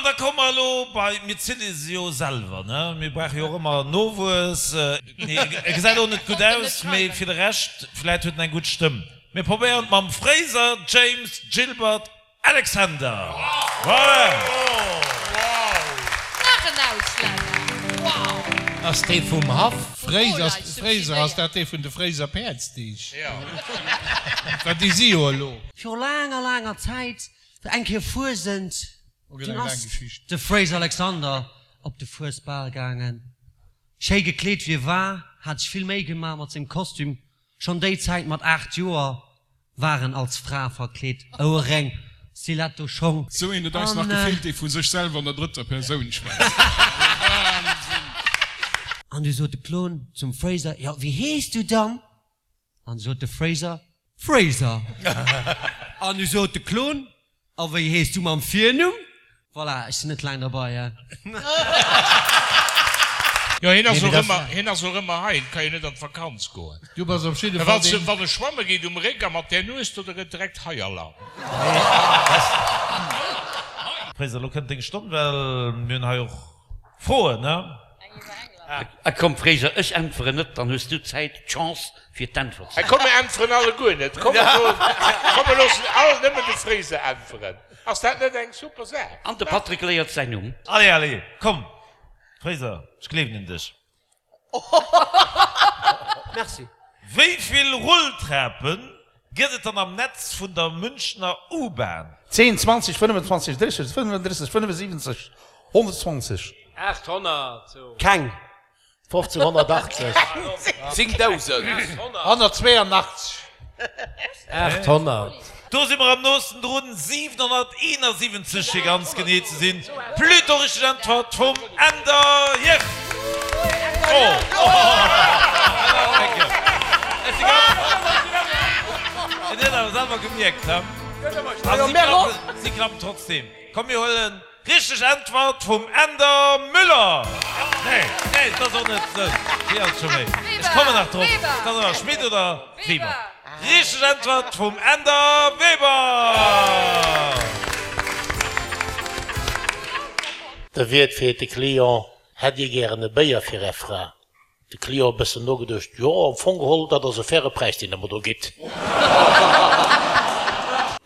an da komme mer elo bei, mir zille se jo selwer, ne? Mir brauche jo och ëmmer Nowuess. Nee, e gesäit och net gutt aus, mee fir de Rescht, vläit huet en eng gutt Stëmm. Mir probéieren et mam Fraser James Gilbert Alexander. Voilà! Nach en Auslänner! Wow! Ass dee vum Haff? Fréiser, ass dat dee vun de Fréiser Päerdsdeeg? Well déi si jo elo. Viru laanger, laanger Zäit war eng Kéier Fuesent. Dunn ass de Fraser Alexander op de Fuesbal gaangen. Schéi gekleet wéi e war, hat sech vill Méi gemaach mat sengem Kostüm. Schonn déi Zäit mat 8 Joer war en als Fra verkleet, Ouerréng, Stiletto Schong. Sou een huet eis nach gefeelt, dee vu sech selwer an der drëtter Persoun schwätzt. Wahnsinn! An du sot de Klon zum Fraser, Jo, wéi hees du dann? An du sot de Fraser, Fraser. An du sot de Klon, A wéi hees du mam Virnumm? Voilà, ech sinn net laang derbei, he. Jo, hien ass och ëmmer, hien ass och ëmmer hei, hien ka jo net an d'Vakanz goen. Du bass op jidde Fall deen. Wann e schwamme geet um Réck a mat där Nues do, da gëtt direkt Haialarm. Fraser, elo kënnt deng Stonn, well mir hunn hei och Froen, ne? A komm Fraser, ech äntweren net, dann hues du d'Zäit, d'Chance fir d'Äntwert ze. Komm mir äntweren alleguer net, komm mir loossen all nëmmen de Fraser äntweren, ass dat net eng super Saach? An de Patrick léiert säin Numm. Allez, allez, komm Fraser, ech gleewen un dech. Merci. Wéi vill Rulltrape gëtt et dann am Netz vun der Münchner U-Bahn? 10, 20, 25, 30, 35, 75, 120. 800, sou. Keng. 1580. 10.000. 182. 800. Do si mer am noosten drun, 771 fir ganz genee ze sinn. Plutôt richteg Äntwert vum Änder Jef. En huet awer selwer gemierkt, he? A si klappen trotzdem. Komm mir huelen Richteg Äntwert vum Änder Müller! Nee, nee, et ass och net esou. Wéi ass et scho méi? Ech kommen nach drop. Et ass awer Schmit oder Weber. Richteg Äntwert vum Änder Weber! De Wiert freet de Client, Hätt Dir gären e Béier fir Är Fra? De Client e bëssen nogeduecht, Jo, am Fong geholl, dat ass e faire Präis, deen Der mer do gitt.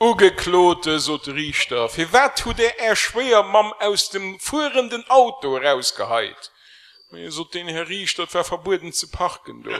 Ugeklote, sot de Riichter, firwat hutt Der Är Schwéiermamm aus dem fuerenden Auto erausgeheit? Mee, sot deen, Här Riichter, et war verbueden ze parken do.